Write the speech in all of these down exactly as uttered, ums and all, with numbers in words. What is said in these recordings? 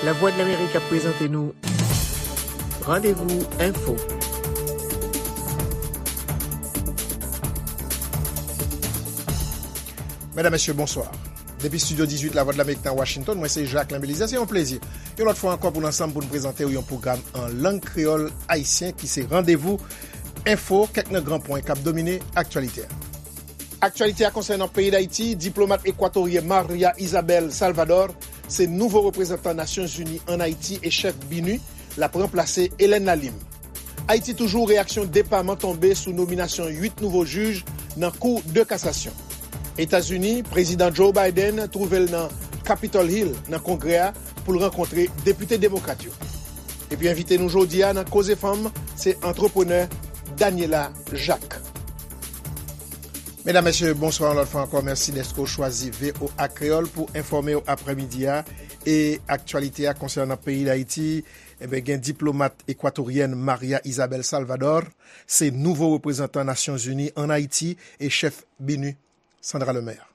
Lavwadlamerik ap prezante nou Randevou Enfo. Medam, mesye, bonswa. Depi estidyo dizuit Lavwadlamerik nan Washington, mwen se Jacquelin Belizaire. Se yon plezi yon lòt fwa ankò pou n ansanm pou n prezante w yon pwogram an lang kreyòl ayisyen ki se Randevou Enfo, kèk nan gran pwen k ap domine aktyalite a. Aktyalite a konsènan peyi Dayiti, diplomat ekwatoryen Maria Isabel Salvador se nouvo reprezantan Nasyonzini ann Ayiti e chèf BINUH l ap ranplase Hélène Lalim. Ayiti toujou, reyaksyon depaman tonbe sou nominasyon uit nouvo jij nan Kou de kasasyon. Etazini, Prezidan Joe Biden twouve l nan Capitol Hill, nan Kongrè a, pou l rankontre depite demokrat yo. Epi envite nou jodi a nan Koze Fanm, se antreprenè Daniela Jacques. Medam, mesye, bonswa yon lòt fwa ankò. Mèsi dèske w chwazi V O A Kreyòl pou enfòme w aprèmidi a. E aktyalite a konsènan peyi Dayiti, enben, gen diplomat ekwatoryèn Maria Isabel Salvador, se nouvo reprezantan Nasyonzini ann Ayiti e chèf BINUH, Sandra Lemaire.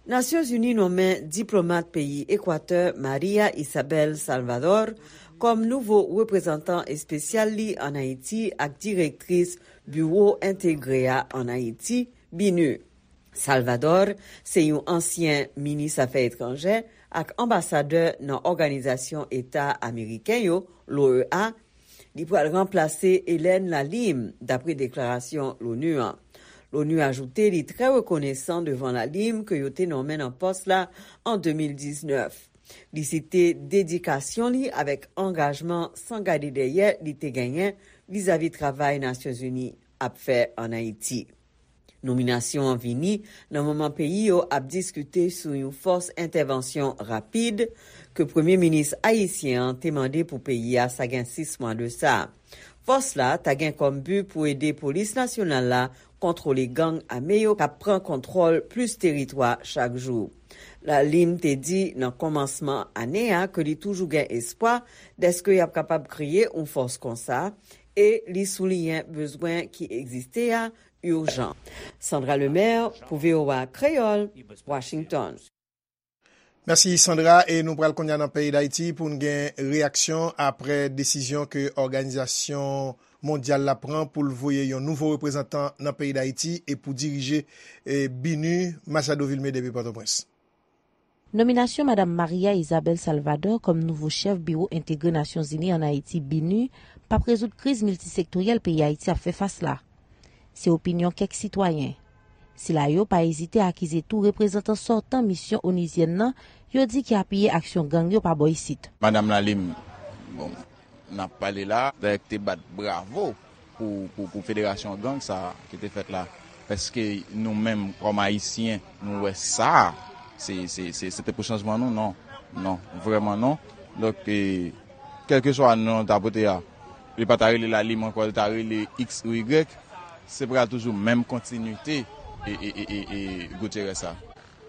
Nasyonzini nonmen diplomat peyi Ekwatè Maria Isabel Salvador kòm nouvo reprezantan espesyal li ann Ayiti ak direktris Biwo Entegre a ann Ayiti, BINUH. Salvador se yon ansyen minis afè etranjè ak anbasadè nan Òganizasyon Eta Ameriken yo, l'O E A. Li pral ranplase Hélène Lalim, dapre deklarasyon l'ONU an. L'ONU ajoute li trè rekonesan devan Lalim ke yo te nonmen nan pòs la an de mil diznèf. Li site dedikasyon li avèk angajman san gade dèyè li te genyen vizavi travay Nasyonzini ap fè ann Ayiti. Nominasyon an vini nan moman peyi yo ap diskite sou yon fòs entèvansyon rapid ke premye minis ayisyen an te mande pou peyi a sa gen sis mwa de sa. Fòs la ta gen kòm bi pou ede polis nasyonal la kontwole gang ame yo k ap pran kontwòl plis teritwa chak jou. Lalim te di nan kòmansman ane a ke li toujou gen espwa dèske y ap kapab kreye yon fòs konsa e li souliyen bezwen ki egziste a ijan. Sandra Lemaire pou V O A Kreyòl, Washington. Mèsi, Sandra. E nou pral kounye a nan peyi Dayiti pou n gen reyaksyon apre desizyon ke òganizasyon mondyal la pran pou l voye yon nouvo reprezantan nan peyi Dayiti e pou dirije, e, BINUH, Machado Vilmé depi Pòtoprens. Nominasyon Madam Maria Isabel Salvador kòm nouvo chèf Biwo Entegre Nasyonzini ann Ayiti, BINUH, p ap rezoud kriz miltisektoryèl peyi Ayiti ap fè fas la. Se opinyon kèk sitwayen. Sila yo pa ezite akize tou reprezantan sòtan misyon onizyèn nan, yo di ki apiye aksyon gang yo pa bò isit. Madanm Lalim, bon, n ap pale la, dayè ki te bat bravo pou, pou, pou federasyon gang sa a ki te fèt la. Èske nou menm, kòm Ayisyen, nou wè sa? Se, se, se, se te pou chanjman nou? Non. Non, vrèman non. Donk, e, kèlkeswa non l ta pote a, li pa ta rele Lalim ankò, li ta rele X ou Y, se pral toujou menm kontinite e, e, e, e, e Gutierrez sa.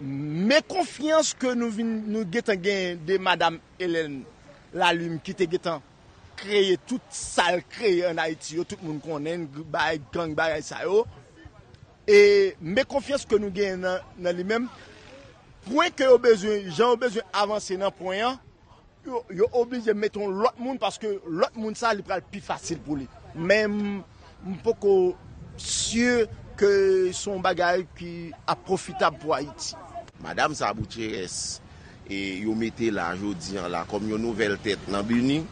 Men konfyans ke nou vin, nou gentan gen de madanm Hélène Lalim ki te gentan kreye tout sa l kreye ann Ayiti yo, tout moun konnen, bagay gang, bagay sa yo. E men konfyans ke nou genyen nan, nan li menm, pwen ke yo bezwen, jan yo bezwen avanse nan pwen an, yo, yo oblije mete yon lòt moun, paske lòt moun sa, li pral pi fasil pou li. Men m, m poko si ke se yon bagay ki ap pwofitab pou Ayiti. Madanm sa, Gutierrez, e yo mete la jodi an la kòm yon nouvèl tèt nan BINUH,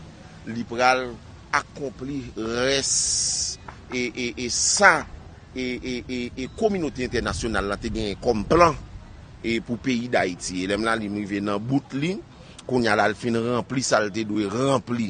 li pral akonpli rès e, e, e sa e, e, e, e kominote entènasyonal la te genyen kòm plan, e, pou peyi Dayiti. E lè m la li m rive nan bout li, kounye a la l fin ranpli sa l te dwe ranpli,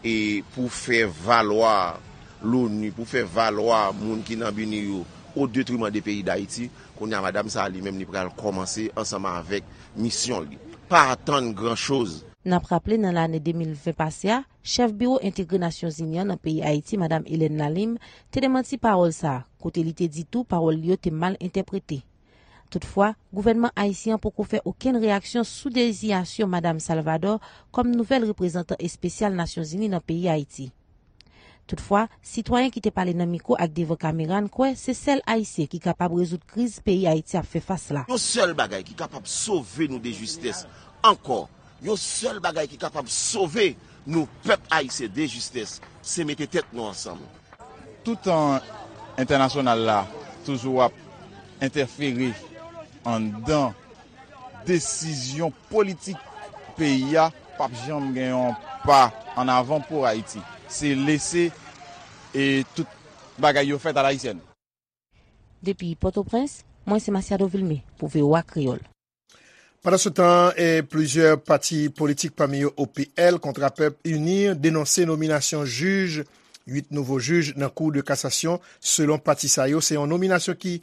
e, pou fè valwa l'ONU, pou fè valwa moun ki nan BINUH yo, o detriman de peyi Dayiti. Kounye a madanm sa a li menm li pral kòmanse ansanm avèk misyon li. Pa atann gran choz. N ap raple nan lane de mil ven pase a, chèf Biwo Entegre Nasyonzini an nan peyi Ayiti, madanm Hélène Lalim, te demanti pawòl sa a, kote li te di tou pawòl li yo te mal entèprete. Toutfwa, gouvènman ayisyen an poko fè okenn reyaksyon sou dezinyasyon madanm Salvador kòm nouvèl reprezantan espesyal Nasyonzini nan peyi Ayiti. Toutfwa, sitwayen ki te pale nan mikwo ak devan kamera n kwè se sèl Ayisyen ki kapab rezoud kriz peyi Ayiti ap fè fas la. Yon sèl bagay ki kapab sove nou de jistès ankò, Yon sèl bagay ki kapab sove nou pèp ayisyen de jistès, se mete tèt nou ansanm. Toutan entènasyonal la toujou ap entèfere anndan desizyon politik peyi a, p ap janm gen yon pa ann avan pou Ayiti. Se lese e tout bagay yo fèt alayisyèn. Depi Pòtoprens, mwen se Masiado Vilmé pou V O A Kreyòl. Pandansetan, eh, plizyè pati politik, pami yo O P L, Kontrapèp, UNIR, denonse nominasyon jij, uit nouvo jij nan Kou de Kasasyon. Selon pati sa yo, se yon nominasyon ki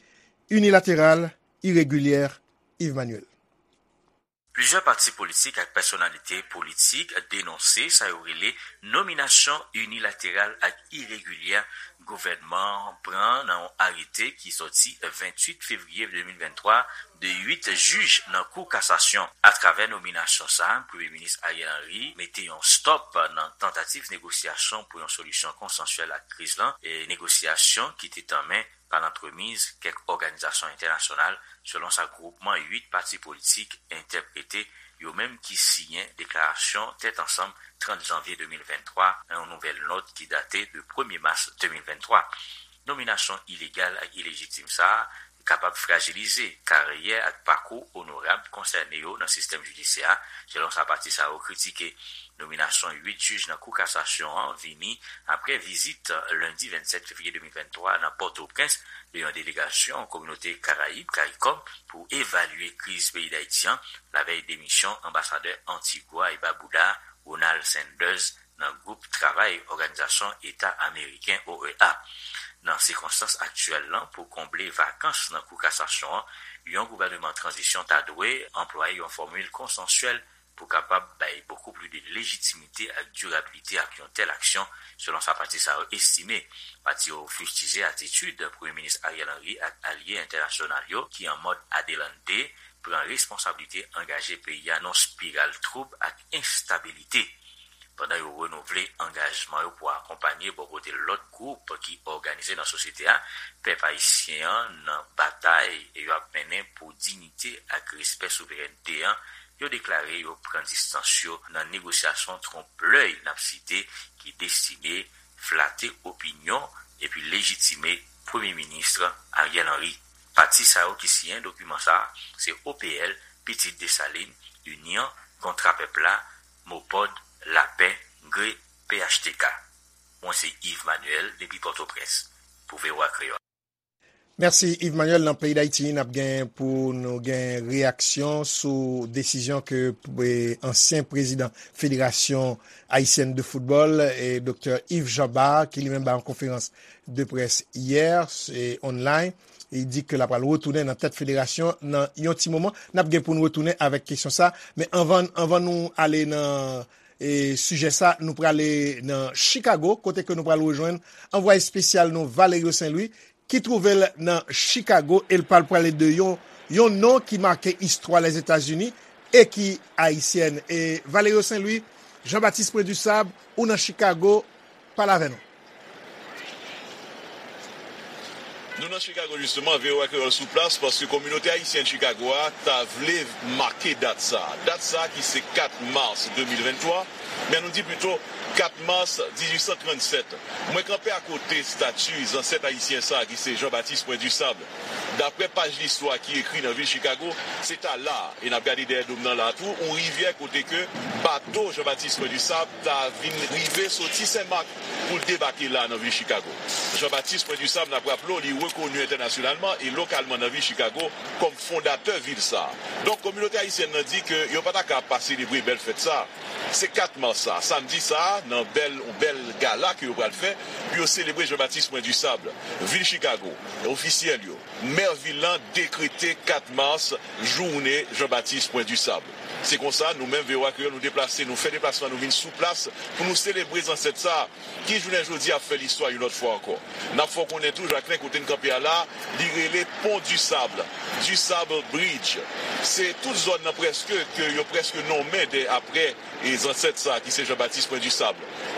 inilateral, iregilyè. Yves Manuel. Plizyè pati politik ak pèsonalite politik denonse sa yo rele nominasyon inilateral ak iregilyè gouvènman an pran nan yon arete ki soti venntuit fevriye de mil venntwa de uit jij nan Kou Kasasyon. Atravè nominasyon sa a, Premye Minis Ariel Henry mete yon stòp nan tantativ negosyasyon pou yon solisyon konsansyèl ak kriz lan, e negosyasyon ki te tanmen pa lantremiz kèk òganizasyon entènasyonal, selon sa gwoupman uit pati politik entèprete, yo menm ki siyen deklarasyon tèt ansanm trant janvye de mil venntwa nan yon nouvèl nòt ki date de premye mas de mil venntwa. Nominasyon ilegal ak ilejitim sa a kapab frajilize karyè ak pakou onorab konsène yo nan sistèm jidisyè a, selon sa pati sa yo kritike. Nominasyon uit jij nan Kou Kasasyon an vini apre vizit lendi vennsèt fevriye de mil venntwa nan Pòtoprens de yon delegasyon kominote Karayib, karikòm, pou evalye kriz peyi Dayiti an, lavèy demisyon anbasadè Antigwa e Babouda, Ronald Sanders, nan gwoup travay Òganizasyon Eta Ameriken, O E A. Nan sikonstans aktyèl lan, pou konble vakans nan Kou Kasasyon an, yon gouvèneman tranzisyon ta dwe anplwaye yon fòmil konsansyèl pou kapab bay bokou plis de lejitimite ak dirabilite ak yon tèl aksyon, selon sa pati sa yo estime. Pati yo fistije atitid Premye Minis Ariel Henry ak alye entènasyonal yo ki an mòd adelante pran responsablite angaje peyi a nan spiral twoub ak enstabilite. Pandan yo renouvle angajman yo pou akonpanye bò kote lòt gwoup ki òganize nan sosyete a, pèp ayisyen an nan batay yo ap mennen pou diyite ak respè souverènte an, yo deklare yo pran distans yo nan negosyasyon twonp lèy n ap site ki destine flate opinyon epi lejitime Premye Minis Ariel Henry. Pati sa yo ki siyen dokiman sa a, se O P L, Pitit Desalin, Inyon, Kontra Pèp la, Mopòd, Lapè, Gre, P H T K. Mwen se Yves Manuel depi Pòtoprens pou V O A Kreyòl. Mèsi, Yves Manuel. Nan peyi Dayiti, n ap gen pou nou gen reyaksyon sou desizyon ke, eh, ansyen prezidan Federasyon Ayisyèn de Foutbòl, eh, Doktè Yves Jean Bart, ki li menm bay yon konferans de près yè, se online. Li di ke l ap pral retounen nan tèt federasyon nan yon ti moman. N ap gen pou n retounen avèk kesyon sa. Men anvan, anvan nou ale nan, e, sijè sa, nou prale nan Chicago, kote ke nou pral rejwenn anvwaye espesyal nou, Valerio Saint Louis, ki twouve l nan Chicago, e l pral pale de yon, yon non ki make istwa Lèzetazini e ki ayisyèn. E Valerio Saint Louis, Jean Baptiste Point du Sable, ou nan Chicago, pale avè nou. Nou nan Chicago, jisteman, V O A Kreyòl sou plas, paske kominote ayisyèn Chicago a ta vle make dat sa a. Dat sa a ki se kat mas de mil venntwa, men nou di pito kat mas dizuit san trannsèt. Mwen kanpe akote estati zansèt ayisyen sa a ki se Jean Baptiste Point du Sable. Daprè paj listwa ki ekri nan vil Chicago, se ta la a, e n ap gade dèyè do m nan la a tou, yon rivyè kote ke bato Jean Baptiste Point du Sable ta vin rive soti Sen Mak pou l debake la nan vil Chicago. Jean Baptiste Point du Sable, n ap raple w, li rekoni entènasyonalman e lokalman nan vil Chicago kòm fondatè vil sa a. Donk, kominote ayisyèn nan di ke yo pa ta ka pa selebre bèl fèt sa a. Se kat mas sa a, samdi sa a, nan bèl, yon bèl gala ke yo pral fè pou yo selebre Jean Baptiste Point du Sable. Vil Chicago, ofisyèl yo, mè vil lan dekrete kat mas jounen Jean Baptiste Point du Sable. Se konsa, nou menm, V O A Kreyòl, nou deplase, nou fè deplasman, nou vin sou plas pou nou selebre zansèt sa a, ki jounen jodi a ap fè listwa yon lòt fwa ankò. N ap fè w konnen tou, Jacquelin, kote n kanpe a la, li rele Pon di Sab, di Sab Bridge. Se tout zòn nan prèske ke yo prèske nonmen de, aprè, e, zansèt sa a ki se Jean Baptiste Point du Sable.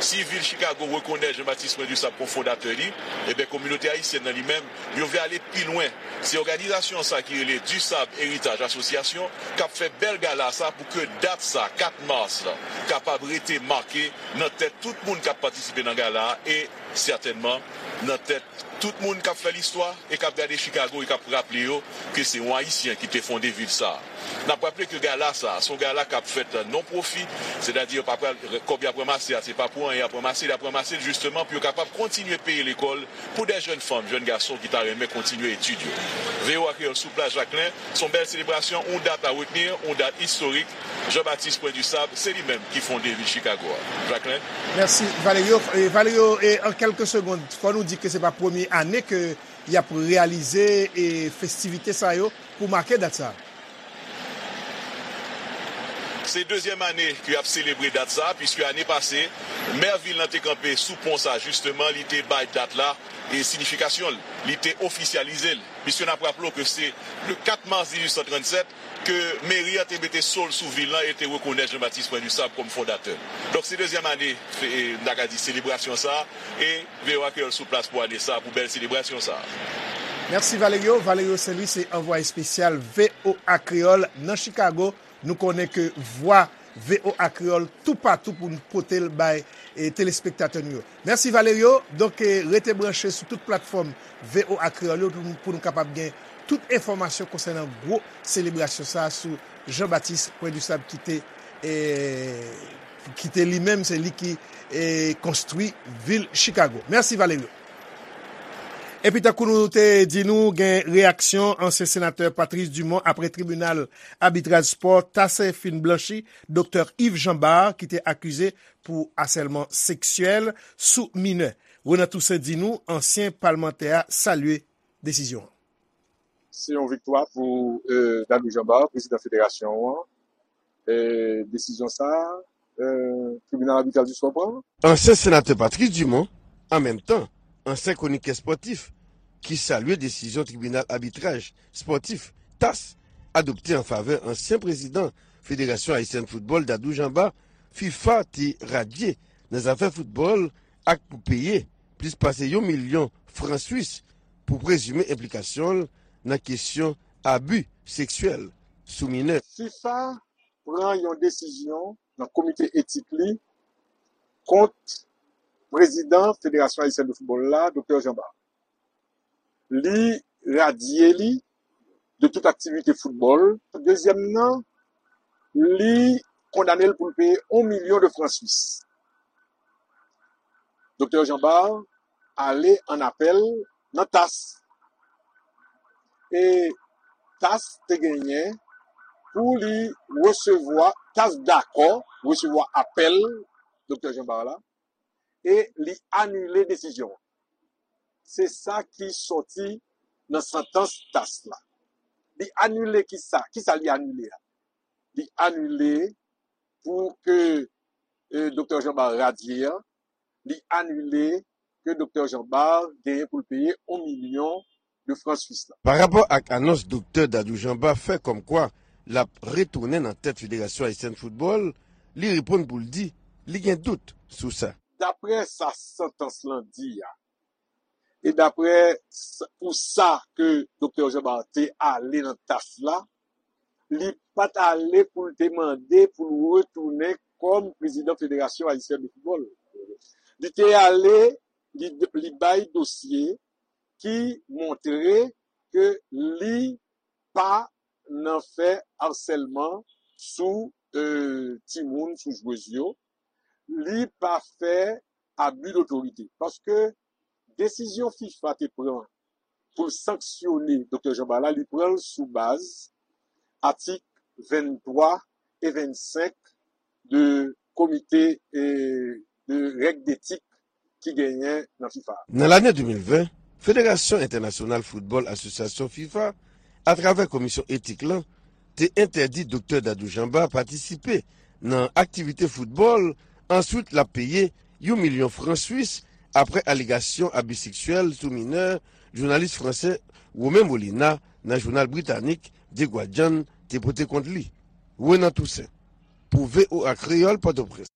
Si vil Chicago rekonèt Jean-Baptiste Point du Sable kòm fondatè li, ebyen kominote ayisyèn nan li menm, yo vle ale pi lwen. Se òganizasyon sa ki rele Du Sable Héritage Association k ap fè bèl gala sa pou ke dat sa, kat mas la, kapab rete make nan tèt tout moun k ap patisipe nan gala a e sètènman nan tèt tout moun k ap fè listwa e k ap gade Chicago e k ap raple yo ke se yon Ayisyen ki te fonde vil sa a. N ap raple ke gala sa a, se yon gala k ap fèt non pwofi, sètadi yo pa pral, kòb y ap ranmase a, se pa pou anyen y ap ranmase l, y ap ranmase l jisteman pou yo kapab kontinye peye lekòl pou de jèn fanm, jèn gason ki ta renmen kontinye etid yo. V O A Kreyòl sou plas Jaklen, se yon bèl selebrasyon, yon dat a retni, yon dat istorik. Jean-Baptiste Point du Sable, se li menm ki fonde vil Chicago a. Jaklen? Mèsi, Valerio. E, Valerio, e, an kèlke segond, fò nou di ke se pa premye ane ke y ap reyalize, e, festivite sa yo pou make dat sa. Se dezyèm ane ke y ap selebre dat sa, piske ane pase, mè vil lan te kanpe sou pon sa, jisteman, li te bay dat la e siyifikasyon l, li te ofisyalize l. Piske n ap raple w ke se le kat mas dizuit san trannsèt ke meri an te mete so l sou vil lan e te rekonèt Jean-Baptiste Point du Sable kòm fondatè. Donk, se dezyèm ane, e, m ta ka di, selebrasyon sa a, e V O A Kreyòl sou plas pou ane sa a, pou bèl selebrasyon sa a. Mèsi, Valerio. Valerio Saint-Louis se anvwaye espesyal V O A Kreyòl nan Chicago. Nou konnen ke vwa V O A Kreyòl toupatou pou n pote l bay, e, telespektatè nou yo. Mèsi, Valerio. Donk, e, rete branche sou tout platfòm V O A Kreyòl yo pou, pou nou kapab gen tout enfòmasyon konsènan gwo selebrasyon sa a sou Jean-Baptiste Point du Sable ki te, e, ki te li menm, se li ki, e, konstwi vil Chicago. Mèsi, Valerio. Epi tankou nou te di nou, gen reyaksyon ansyen senatè Patrice Dumont apre tribinal abitraj spò TAS fin blanchi Doktè Yves Jean Bart ki te akize pou asèlman seksyèl sou minè. Renan Toussaint di nou ansyen palmantè a salye desizyon an. Se yon viktwa pou, e, Dadou Jean Bart, prezidan federasyon an. E, desizyon sa a, e, tribinal abitral di spò pran. Ansyen senatè Patrice Dumont, an menm tan, ansyen kwonikè spòtif, ki salye desizyon tribinal abitraj spòtif, TAS, adopte an favè ansyen prezidan Federasyon Ayisyèn Foutbòl, Dadou Jean Bart, fifa te radye nan zafè foutbòl ak pou peye plis pase yon milyon fran swis pou prezime enplikasyon l nan kesyon abi seksyèl sou minè. fifa pran yon desizyon nan komite etik li kont prezidan Federasyon Ayisyèn de Foutbòl la, Doktè Jean Bart. Li radye li de tout aktivite foutbòl. Dezyèm nan, li kondane l pou l peye yon milyon de fran swis. Doktè Jean Bart ale an apèl nan TAS. E TAS te genyen pou li resevwa, TAS dakò resevwa apèl Doktè Jean Bart la, e li anile desizyon an. Se sa ki sòti nan santans TAS la. Li anile kisa? Kisa li anile a? Li anile pou ke, e, Doktè Jean Bart radye a, li anile ke Doktè Jean Bart genyen pou l peye yon milyon de fran swis la. Parapò ak anons Doktè Dadou Jean Bart fè kòmkwa l ap retounen nan tèt Federasyon Ayisyèn Foutbòl, li reponn pou l di li gen dout sou sa. Daprè sa santans lan di a, e daprè s-, pou sa ke Doktè Jean Bart te ale nan TAS la, li pa t ale pou l te mande pou l retounen kòm prezidan Federasyon Ayisyèn de Foutbòl. Li te ale, li, li bay dosye ki montre ke li pa nan fè asèlman sou, e, timoun, sou jwez yo. Li pa fè abi dotorite. Paske desizyon fifa te pran pou l sanksyone Doktè Jean Bart la, li pran l sou baz atik venntwa e vennsenk de komite, e, de règ detik ki genyen nan fifa. Nan lane de mil ven, Federasyon Entènasyonal Foutbòl Asosyasyon fifa, atravè komisyon etik lan, te entèdi Doktè Dadou Jean Bart patisipe nan aktivite foutbòl, answit l ap peye yon milyon fran swis apre alegasyon abi seksyèl sou minè jounalis fransè Romain Molina nan jounal britanik The Guardian te pote kont li. Renan Toussaint, pou V O A Kreyòl, Pòtoprens.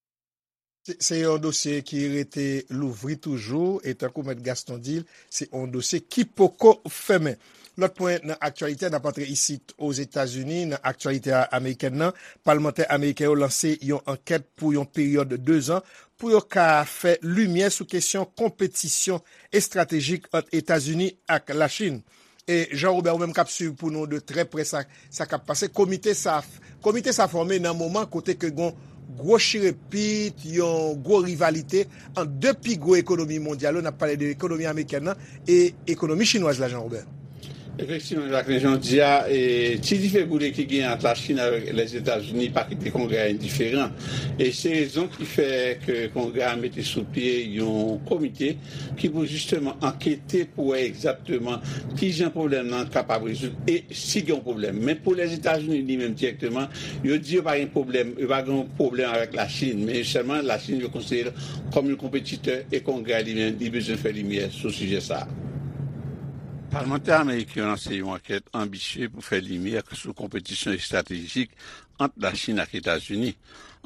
Se se yon dosye ki rete louvri toujou, e tankou Mèt Gaston di l, se yon dosye ki poko fèmen. Lòt pwen nan aktyalite a, n ap antre isit Ozetazini, nan aktyalite a amerikèn nan, palmantè ameriken yo lanse yon ankèt pou yon peryòd de zan pou yo ka fè limyè sou kesyon konpetisyon estratejik ant Etazini ak Lachin. E Jean Robert, ou menm k ap swiv pou nou de trè prè sa, sa k ap pase. Komite sa, komite sa fòme nan moman kote ke gon gwo chirepit, yon gwo rivalite ant de pi gwo ekonomi mondyal yo. N ap pale de ekonomi amerikèn nan e ekonomi chinwaz la, Jean Robert. Efektivman, Jacqueline, jan w di a, e, ti dife boule ki gen ant Lachin avèk Lèzetazini pa kite Kongrè a endiferan. E se rezon ki fè ke Kongrè a mete sou pye yon komite ki pou jisteman ankete pou wè egzakteman kijan pwoblèm nan kapab rezoud e si gen yon pwoblèm. Men pou Lèzetazini li menm dirèkteman, yo di yo pa gen pwoblèm, yo pa gen yon pwoblèm avèk Lachin, men sèlman Lachin yo konsidere l kòm yon konpetitè e Kongrè a li menm li bezwen fè limyè sou sijè sa a. Palmantè ameriken yo lanse yon ankèt anbisye pou fè limyè sou konpetisyon estratejik ant Lachin ak Etazini.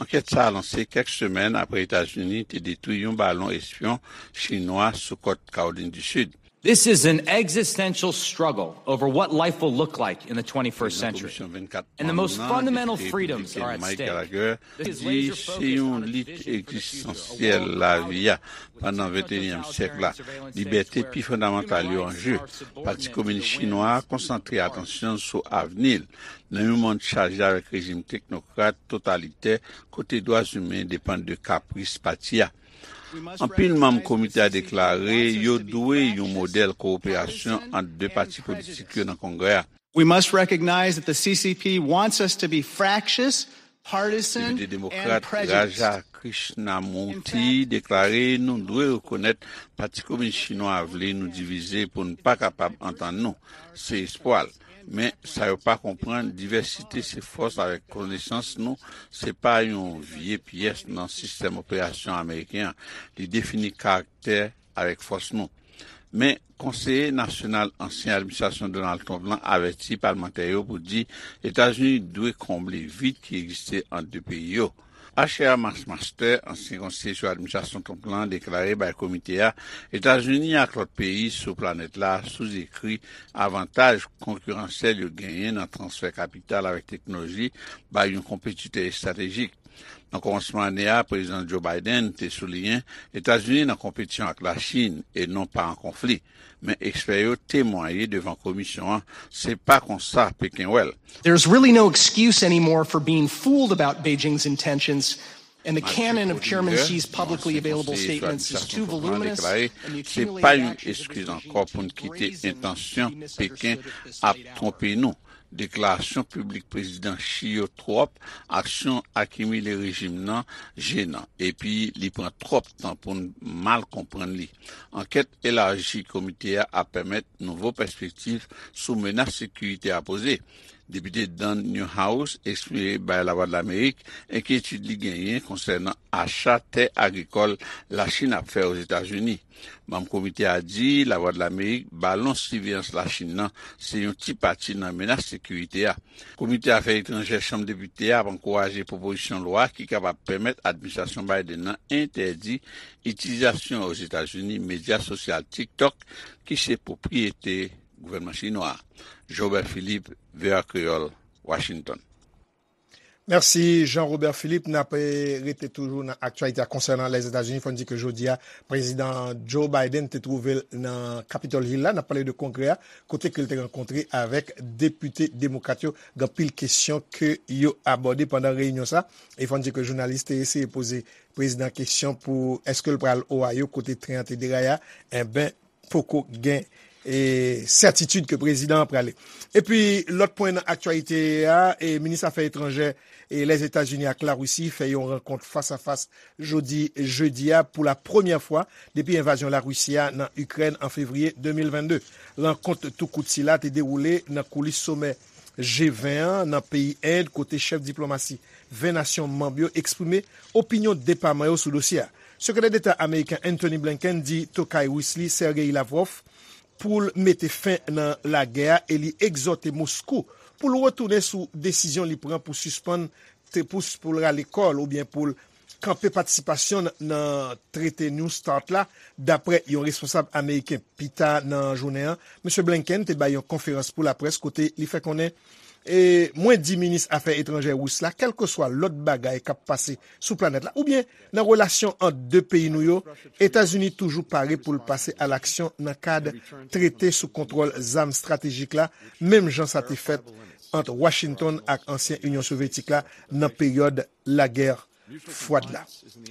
Ankèt sa a lanse kèk semèn apre Etazini te detwi yon balon espyon chinwa sou kòt Kawolin di Sid. This is an existential struggle over what life will look like in the twenty-first century. And the most fundamental freedoms are at stake. This is di se yon lit egzistansyèl lavi a pandan venteyinyèm syèk la. Libète pi fondamantal yo an je. Pati Kominis Chinwa a konsantre atansyon l sou avni l nan yon mond chaje avèk rejim teknokrat totalitè kote dwa imen depann de kapris pati a. Anpil manm komite a deklare yo dwe yon modèl kowoperasyon ant de pati politik yo nan Kongrè a. We must recognize that the C C P wants us to be fractious, partisan, Depite demokrat Raja Krishnamurti deklare nou dwe rekonèt Pati Kominis Chinwa a vle nou divize pou n pa kapab antann nou. Se espwa l. Men, sa yo pa konprann, divèsite se fòs avèk konesans nou, se pa yon vye pyès nan sistèm operasyon ameriken an. Li defini karaktè avèk fòs nou. Men, konseye nasyonal ansyen administrasyon Donald Trump lan avèti palmantè yo pou di Etazini dwe konble vid ki egziste ant de peyi yo. Asher Master, ansyen konseye sou administrasyon Trump lan, deklare bay komite a Etazini ak lòt peyi sou planèt la souzekri avantaj konkiransyèl yo genyen nan transfè kapital avèk teknoloji bay yon konpetitè estratejik. Nan kòmansman ane a, Prezidan Joe Biden te souliyen Etazini nan konpetisyon ak Lachin e non pa an konfli. Men ekspè yo temwaye devan komisyon an, se pa konsa Peken wè l. There's really no excuse anymore for being fooled about Beijing's intentions, and the canon of Chairman Xi's publicly available statements is too voluminous, and the accumulated action of Beijing raises a serious issue. Deklarasyon piblik Prezidan Xi yo twòp, aksyon akimile rejim nan jenan, epi li pran twòp tan pou n mal konprann li. Ankèt elaji komite a ap pèmèt nouvo pèspektiv sou menas sekirite a poze. Depite Dan Newhouse eksprime bay Lavwadlamerik enkyetid li genyen konsènan acha tè agrikòl Lachin ap fè Ozetazini. Manm komite a di Lavwadlamerik balon siveyans Lachin nan se yon ti pati nan menas sekirite a. Komite Afè Etranjè Chanm Depite a ap ankouraje pwopozisyon lwa ki kapab pèmèt administrasyon Biden nan entèdi itilizasyon Ozetazini medya sosyal TikTok ki se pwopriyete gouvènman chinwa a. Jobert Philippe, V O A Kreyòl, Washington. Mèsi Jean Robert Philippe. N ap, eh, rete toujou nan aktyalite a konsènan Lèzetazini. Fò n di ke jodi a, Prezidan Joe Biden te twouve l nan Capitol Hill la. N ap pale de Kongrè a, kote ke l te rankontre avèk depite demokrat yo. Gen anpil kesyon ke yo abòde pandan reyinyon sa. E fò n di ke jounalis te eseye poze prezidan kesyon pou èske l pral Ohio, kote tren an te deraye a. Enben, poko gen, e, sètitid ke prezidan an prale. Epi, lòt pwen nan aktyalite a, e, minis afè etranjè, e, Lèzetazini ak Larisi fè yon rankont fas a fas jodi jedi a pou la premyè fwa depi envazyon Larisi a nan Ikrèn an fevriye de mil vennde. Rankont tou kout sila te dewoule nan koulis somè G ven an nan peyi End, kote chèf diplomasi ven nasyon manm yo eksprime opinyon depaman yo sou dosye a. Sekretè Deta ameriken Antony Blinken di tokay ris li Sergei Lavrov pou l mete fen nan lagè a e li egzòte Moskou pou l retounen sou desizyon li pran pou sispann te pous pou l rale kò l oubyen pou l kanpe patisipasyon l nan trete New START la, dapre yon responsab ameriken. Pita nan jounen an, Mesye Blinken te bay yon konferans pou laprès kote li fè konnen, e, mwen di minis afè etranjè ris la, kèlkeswa lòt bagay k ap pase sou planèt la, oubyen nan relasyon ant de peyi nou yo, Etazini toujou pare pou l pase alaksyon nan kad trete sou kontwòl zam estratejik la, menm jan sa te fèt ant Washington ak ansyen Inyon Sovyetik la nan peryòd lagè fwad la.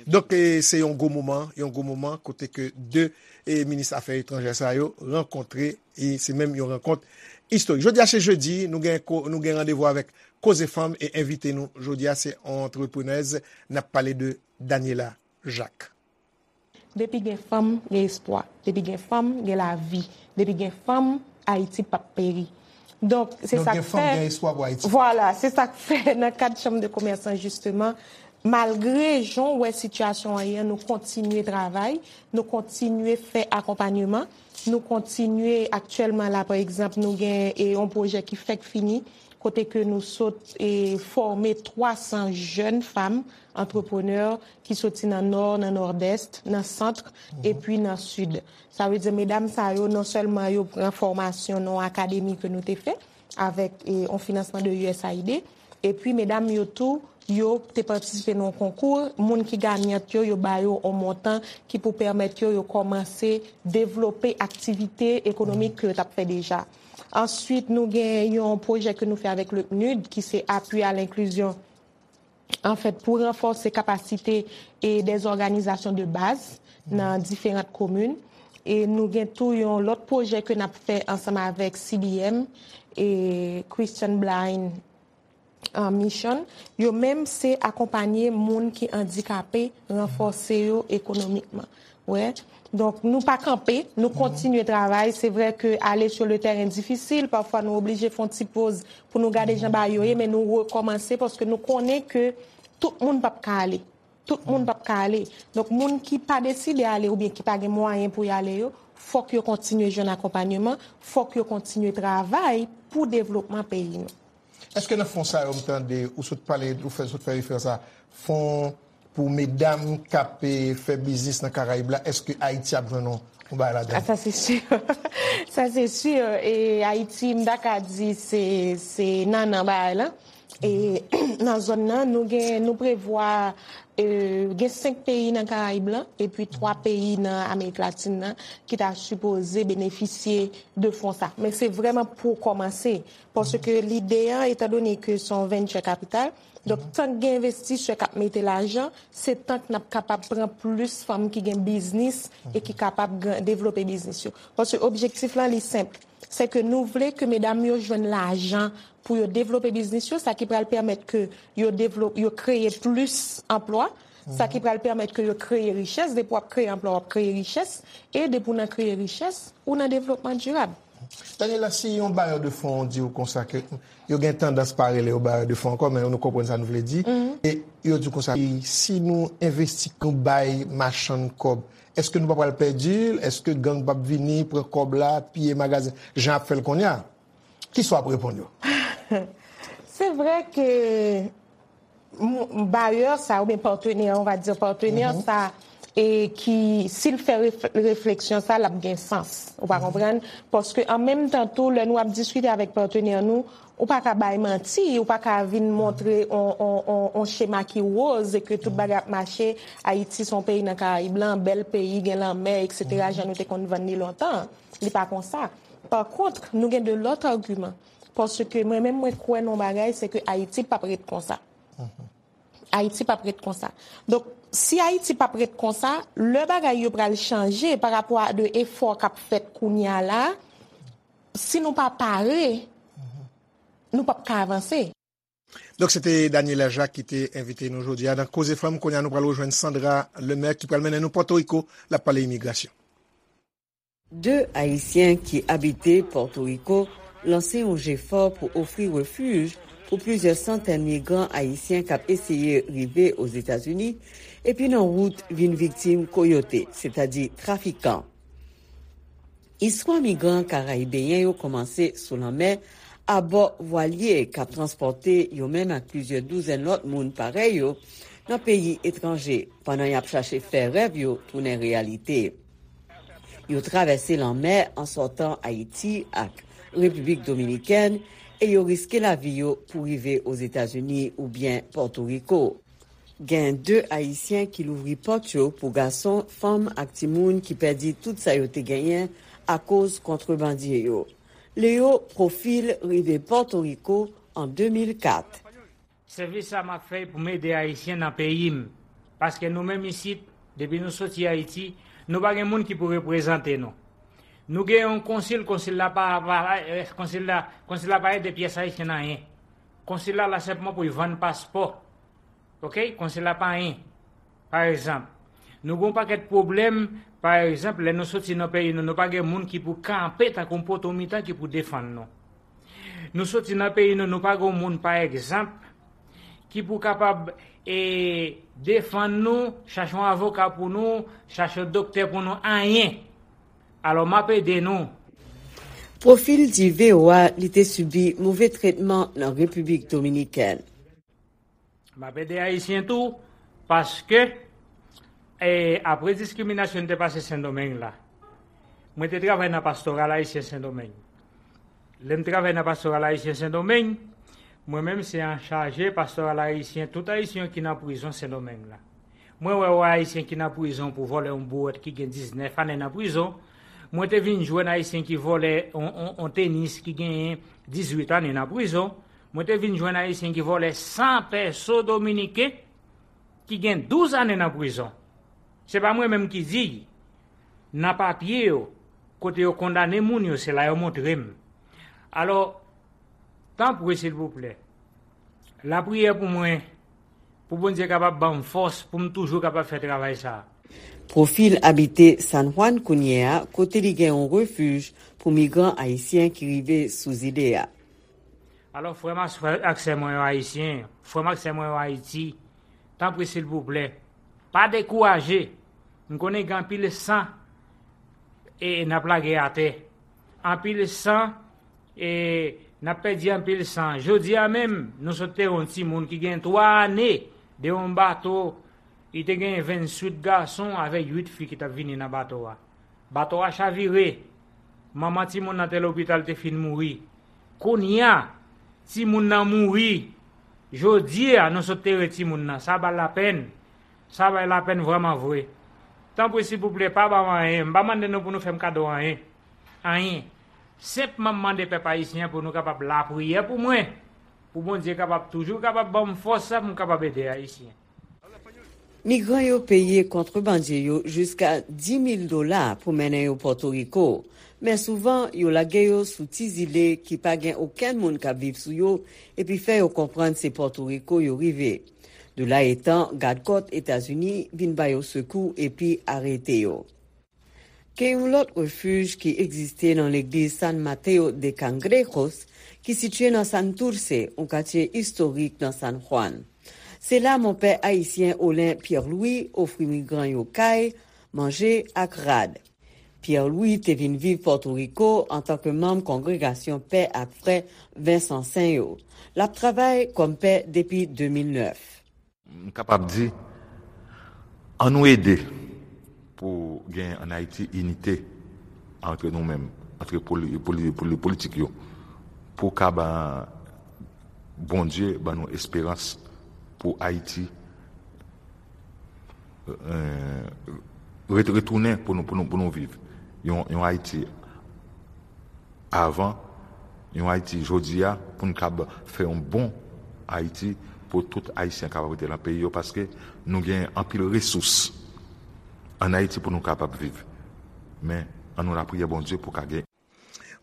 Donk, e, se yon gwo moman, yon gwo moman kote ke de, e, minis afè etranjè sa yo rankontre, e se menm yon rankont istorik. Jodi a se jedi, nou gen ko-, nou gen randevou avèk Koze Fanm e envite nou jodi a se yon antreprenèz, n ap pale de Daniela Jacques. Depi gen fanm, gen espwa. Depi gen fanm, gen lavi. Depi gen fanm, Ayiti p ap peri. Donk, se Donk, sa gen k fanm, fè gen espwa pou Ayiti. Vwala, se sa k fè nan kad Chanm de Komès lan, jisteman, malgre jan w wè sitiyasyon an ye an, nou kontinye travay, nou kontinye fè akonpanyeman, nou kontinye, aktyèlman la, pa egzanp, nou gen, e, yon pwojè ki fèk fini, kote ke nou sot, e, fòme twa san jèn fanm antreprenè ki soti nan Nò, nan Nòdès, nan Sant, epi nan Sid. Sa vle di, medam sa yo, non sèlman yo pran fòmasyon nan yon akademi ke nou te fè avèk, e, yon finansman de U S A I D, epi medam yo tou, yo te patisipe nan yon konkou, moun ki ganyant yo, yo ba yo yon montan ki pou pèmèt yo, yo kòmanse devlope aktivite ekonomik ke yo t ap fè deja. Answit, nou gen yon pwojè ke nou fè avèk le PNUD, ki se apui à l'inclusion, anfèt, pou ranfòse kapasite e dè òganizasyon de baz nan diferan komin. E nou gen tou yon lòt pwojè ke n ap fè ansanm avèk C B M e Christian Blind, uh, Mission. Yo menm, se akonpanye moun ki andikape, ranfòse yo ekonomikman. Wè. Donk, nou pa kanpe, nou kontinye travay. Se vre ke ale sur le terrain difisil, pafwa nou oblije fè yon ti poz pou nou gade jan bagay yo ye, men nou rekòmanse paske nou konnen ke tout moun p ap ka ale. Tout moun p ap ka ale. Donk, moun ki pa deside ale oubyen ki pa gen mwayen pou y ale yo, fòk yo kontinye jwenn akonpanyeman, fòk yo kontinye travay pou devlopman peyi nou. Èske nan fon sa yo m tande ou sot pale, ou fè, sot fè referans a fon pou medam k ap, e, fè biznis nan Karayib la, èske Ayiti ap jwenn yon, yon bagay ladan? Ah, sa se si. Sa se si. E Ayiti, m ta ka di se, se nannan bagay la. E nan zòn nan, nou gen, nou prevwa, e, gen senk peyi nan Karayib lan, epi twa peyi nan Amerik Latin nan, ki ta sipoze benefisye de fon sa. Men se vrèman pou kòmanse. Paske lide an, etandone ke se yon venture capital, donk, tank gen envestisè k ap mete lajan, se tank n ap kapab pran plis fanm ki gen biznis e ki kapab gran-, devlope biznis yo. Paske objektif lan, li senp. Se ke nou vle ke medam yo jwenn lajan pou yo devlope biznis yo, sa ki pral pèmèt ke yo devlop-, yo kreye plis anplwa, sa ki pral pèmèt ke yo kreye richès. Depi w ap kreye anplwa, w ap kreye richès. E depi w nan kreye richès, ou nan devlopman dirab. Daniela, si yon bayè de fon di w konsa ke yo gen tandans pa rele yo bayè de fon ankò, men nou konprann sa nou vle di. E yo di w konsa, si nou envesti, nou bay machann kòb, èske nou pa pral pèdi l? Èske gang p ap vini, pran kòb la, piye magazen, jan y ap fè l kounye a? Kisa w ap reponn yo? Se vre ke m-, bayè sa, oubyen patenè, on va dire patenè sa, e ki, si l fè ref-, refleksyon sa, l ap gen sans. Ou pa konprann? Paske an menm tan tou, lè nou ap diskite avèk patenè nou, ou pa ka bay manti, ou pa ka vin montre on, on, on, on chema ki woz e ke tout bagay ap mache, Ayiti se yon peyi nan Karayib lan, bèl peyi, gen lanmè, et cetera, jan nou te konn vann li lontan. Li pa konsa. Pa kont, nou gen de lòt agiman. Paske mwen menm, mwen kwè nan yon bagay, se ke Ayiti p ap ret konsa. Ayiti p ap ret konsa. Donk, si Ayiti p ap ret konsa, lè bagay yo pral chanje pa rapò a de efò k ap fèt kounye a la, si nou pa pare, nou p ap ka avanse. Donk, se te Daniela Jacques ki te envite nou jodi a nan Koze Fanm. Kounye a, nou pral rejwenn Sandra Lemaire ki pral mennen nou Pòtoriko, l ap pale imigrasyon. De Ayisyen ki abite Pòtoriko lanse yon jefò pou ofri refij pou plizyè santèn migran ayisyen k ap eseye rive Ozetazini epi nan wout vin viktim koyote, sètadi trafikan. Istwa migran karayibeyen yo kòmanse sou lanmè, abò vwalye k ap transpòte yo menm ak plizyè douzèn lòt moun parèy yo, nan peyi etranje pandan y ap chache fè rèv yo tounen reyalite. Yo travèse lanmè an sòtan Ayiti ak Repiblik Dominikèn e yo riske lavi yo pou rive Ozetazini oubyen Pòtoriko. Gen de Ayisyen ki louvri pòt yo pou gason, fanm ak timoun ki pèdi tout sa yo te genyen akoz kontrebandye yo. Leo Profil rive Pòtoriko an de mil kat. Sèvis sa m ap fè pou m ede Ayisyen nan peyi m. Paske nou menm isit, depi nou soti Ayiti, nou pa gen moun ki pou reprezante nou. Nou gen yon konsil, konsil la pa, pa, eh, konsil la, konsil la pa ede pyès Ayisyen nan anyen. Konsil la la senpman pou l vann paspò. Oke? Konsil la pa anyen. Pa egzanp, nou gen yon pakèt pwoblèm, pa egzanp, lè nou soti nan peyi nou, nou pa gen moun ki pou kanpe tankou yon poto mitan ki pou defann nou. Nou soti nan peyi nou, nou pa gen yon moun, pa egzanp, ki pou kapab e, defann nou, chache yon avoka pou nou, chache yon doktè pou nou, anyen. Alò, m ap ede nou. Profil di V O A li te sibi move tretman nan Repiblik Dominikèn. M ap ede Ayisyen tou, paske e, apre diskriminasyon te pase Sendomeng la, mwen te travay nan Pastoral Ayisyen Sendomeng. Lè m travay nan Pastoral Ayisyen Sendomeng, mwen menm se anchaje Pastoral Ayisyen, tout Ayisyen ki nan prizon Sendomeng la. Mwen wè yon Ayisyen ki nan prizon pou vòlè yon bouwèt ki gen diznèf ane nan prizon. Mwen te vin jwenn Ayisyen ki vòlè yon, yon, yon tenis ki genyen dizuit ane nan prizon. Mwen te vin jwenn Ayisyen ki vòlè san pèso dominiken ki gen douz ane nan prizon. Se pa mwen menm ki di l. Nan papye yo, kote yo kondane moun yo, se la yo montre m. Alò, tanpri silvouplè, lapriyè pou mwen, pou Bondye kapab ban m fòs pou m toujou kapab fè travay sa a. Profil abite San Juan kounye a, kote li gen yon refij pou migran ayisyen ki rive sou zile a. Alò, frè m ak sè mwen yo ayisyen, frè m ak sè mwen yo Ayiti, tanpri silvouplè, pa dekouraje. M konnen gen anpil san e n ap lage atè. Anpil san e n ap pèdi anpil san. Jodi a menm, nou sot te yon timoun ki gen twa ane de yon bato, li te gen vennsuit gason avèk uit fi ki t ap vini nan bato a. Bato a chavire. Manman timoun nan te lopital, te fin mouri. Kounye a, timoun nan mouri. Jodi a, nou sot tere timoun nan. Sa ba l lapenn. Sa bay lapenn vrèman vre. Tanpri silvouplè, pa ba m anyen. M pa mande nou pou nou fè m kado anyen. Anyen. Senpman m mande pèp ayisyen an pou nou kapab lapriyè pou mwen. Pou Bondye kapab toujou kapab ban m fòs sa pou m kapab ede Ayisyen. Migran yo peye kontrebandye yo jiska dis mil dola pou mennen yo Pòtoriko, men souvan yo lage yo sou ti zile ki pa gen okenn moun k ap viv sou yo epi fè yo konprann se Pòtoriko yo rive. De la etan, gadkòt Etazini vin ba yo sekou epi arete yo. Gen yon lòt refij ki egziste nan legliz San Mateo de Cangrejos, ki sitiye nan Santurce, yon katye istorik nan San Juan. Se la monpè ayisyen Olin Pierre Louis ofri migran yo kay, manje ak rad. Pierre Louis te vin viv Pòtoriko antanke manm kongregasyon Pè ak Frè Vensansen yo. L ap travay kòm pè depi de mil nèf. M kapab di, ann nou ede pou gen ann Ayiti inite antre nou menm, antre politik yo, pou ka ba Bondye ban nou esperans pou Ayiti retounen pou nou viv yon Ayiti avan, yon Ayiti jodi a, pou n kab fè yon bon Ayiti pou tout Ayisyen kapab rete nan peyi yo, paske nou gen anpil resous ann Ayiti pou nou kapab viv. Men, ann nou lapriyè Bondye pou ka gen.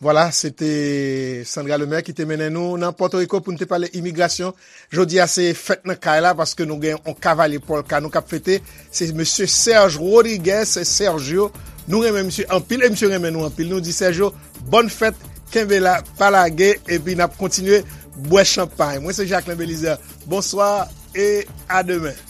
Vwala, se te Sandra Lemaire ki te mennen nou nan Pòtoriko pou n te pale imigrasyon. Jodi a se fèt nan kay la paske nou gen yon kavalye pòlka nou k ap fete. Se mesye Serge Rodriguez, Sergio. Nou renmen misye anpil e misye renmen nou anpil. Nou di Sergio, bòn fèt, kenbe la, pa lage, epi n ap kontinye bwè chanpay. Mwen se Jacquelin Belizaire. Bonswa e a demen.